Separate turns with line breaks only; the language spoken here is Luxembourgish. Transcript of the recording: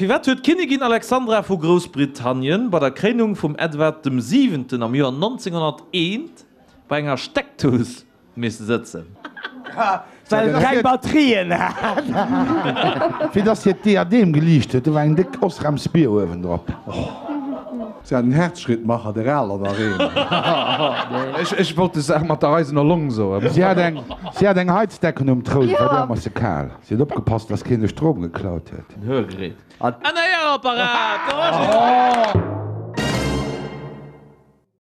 Firwat huet d'Kinnigin Alexandra vu Groussbritannien bei der Kréinung vum Edward dem Siwenten am Joer 1901 bei enger Steckdous misse sëtzen?
Well et keng Batterien hat.
Fir dass hiert Diadem geliicht huet, do war eng déck Osrams Bier uewendrop.
Si hat en Herzschrittmacher, der aler nach een.
Ech wollt des Saach mat der eisener Long soen.
Si hat eng, si hat eng Heizdecken um Troun, et war ëmmer ze kal. Si huet opgepasst, dass keen de Strom geklaut huet.
En Hörgerät. En Héierapparat!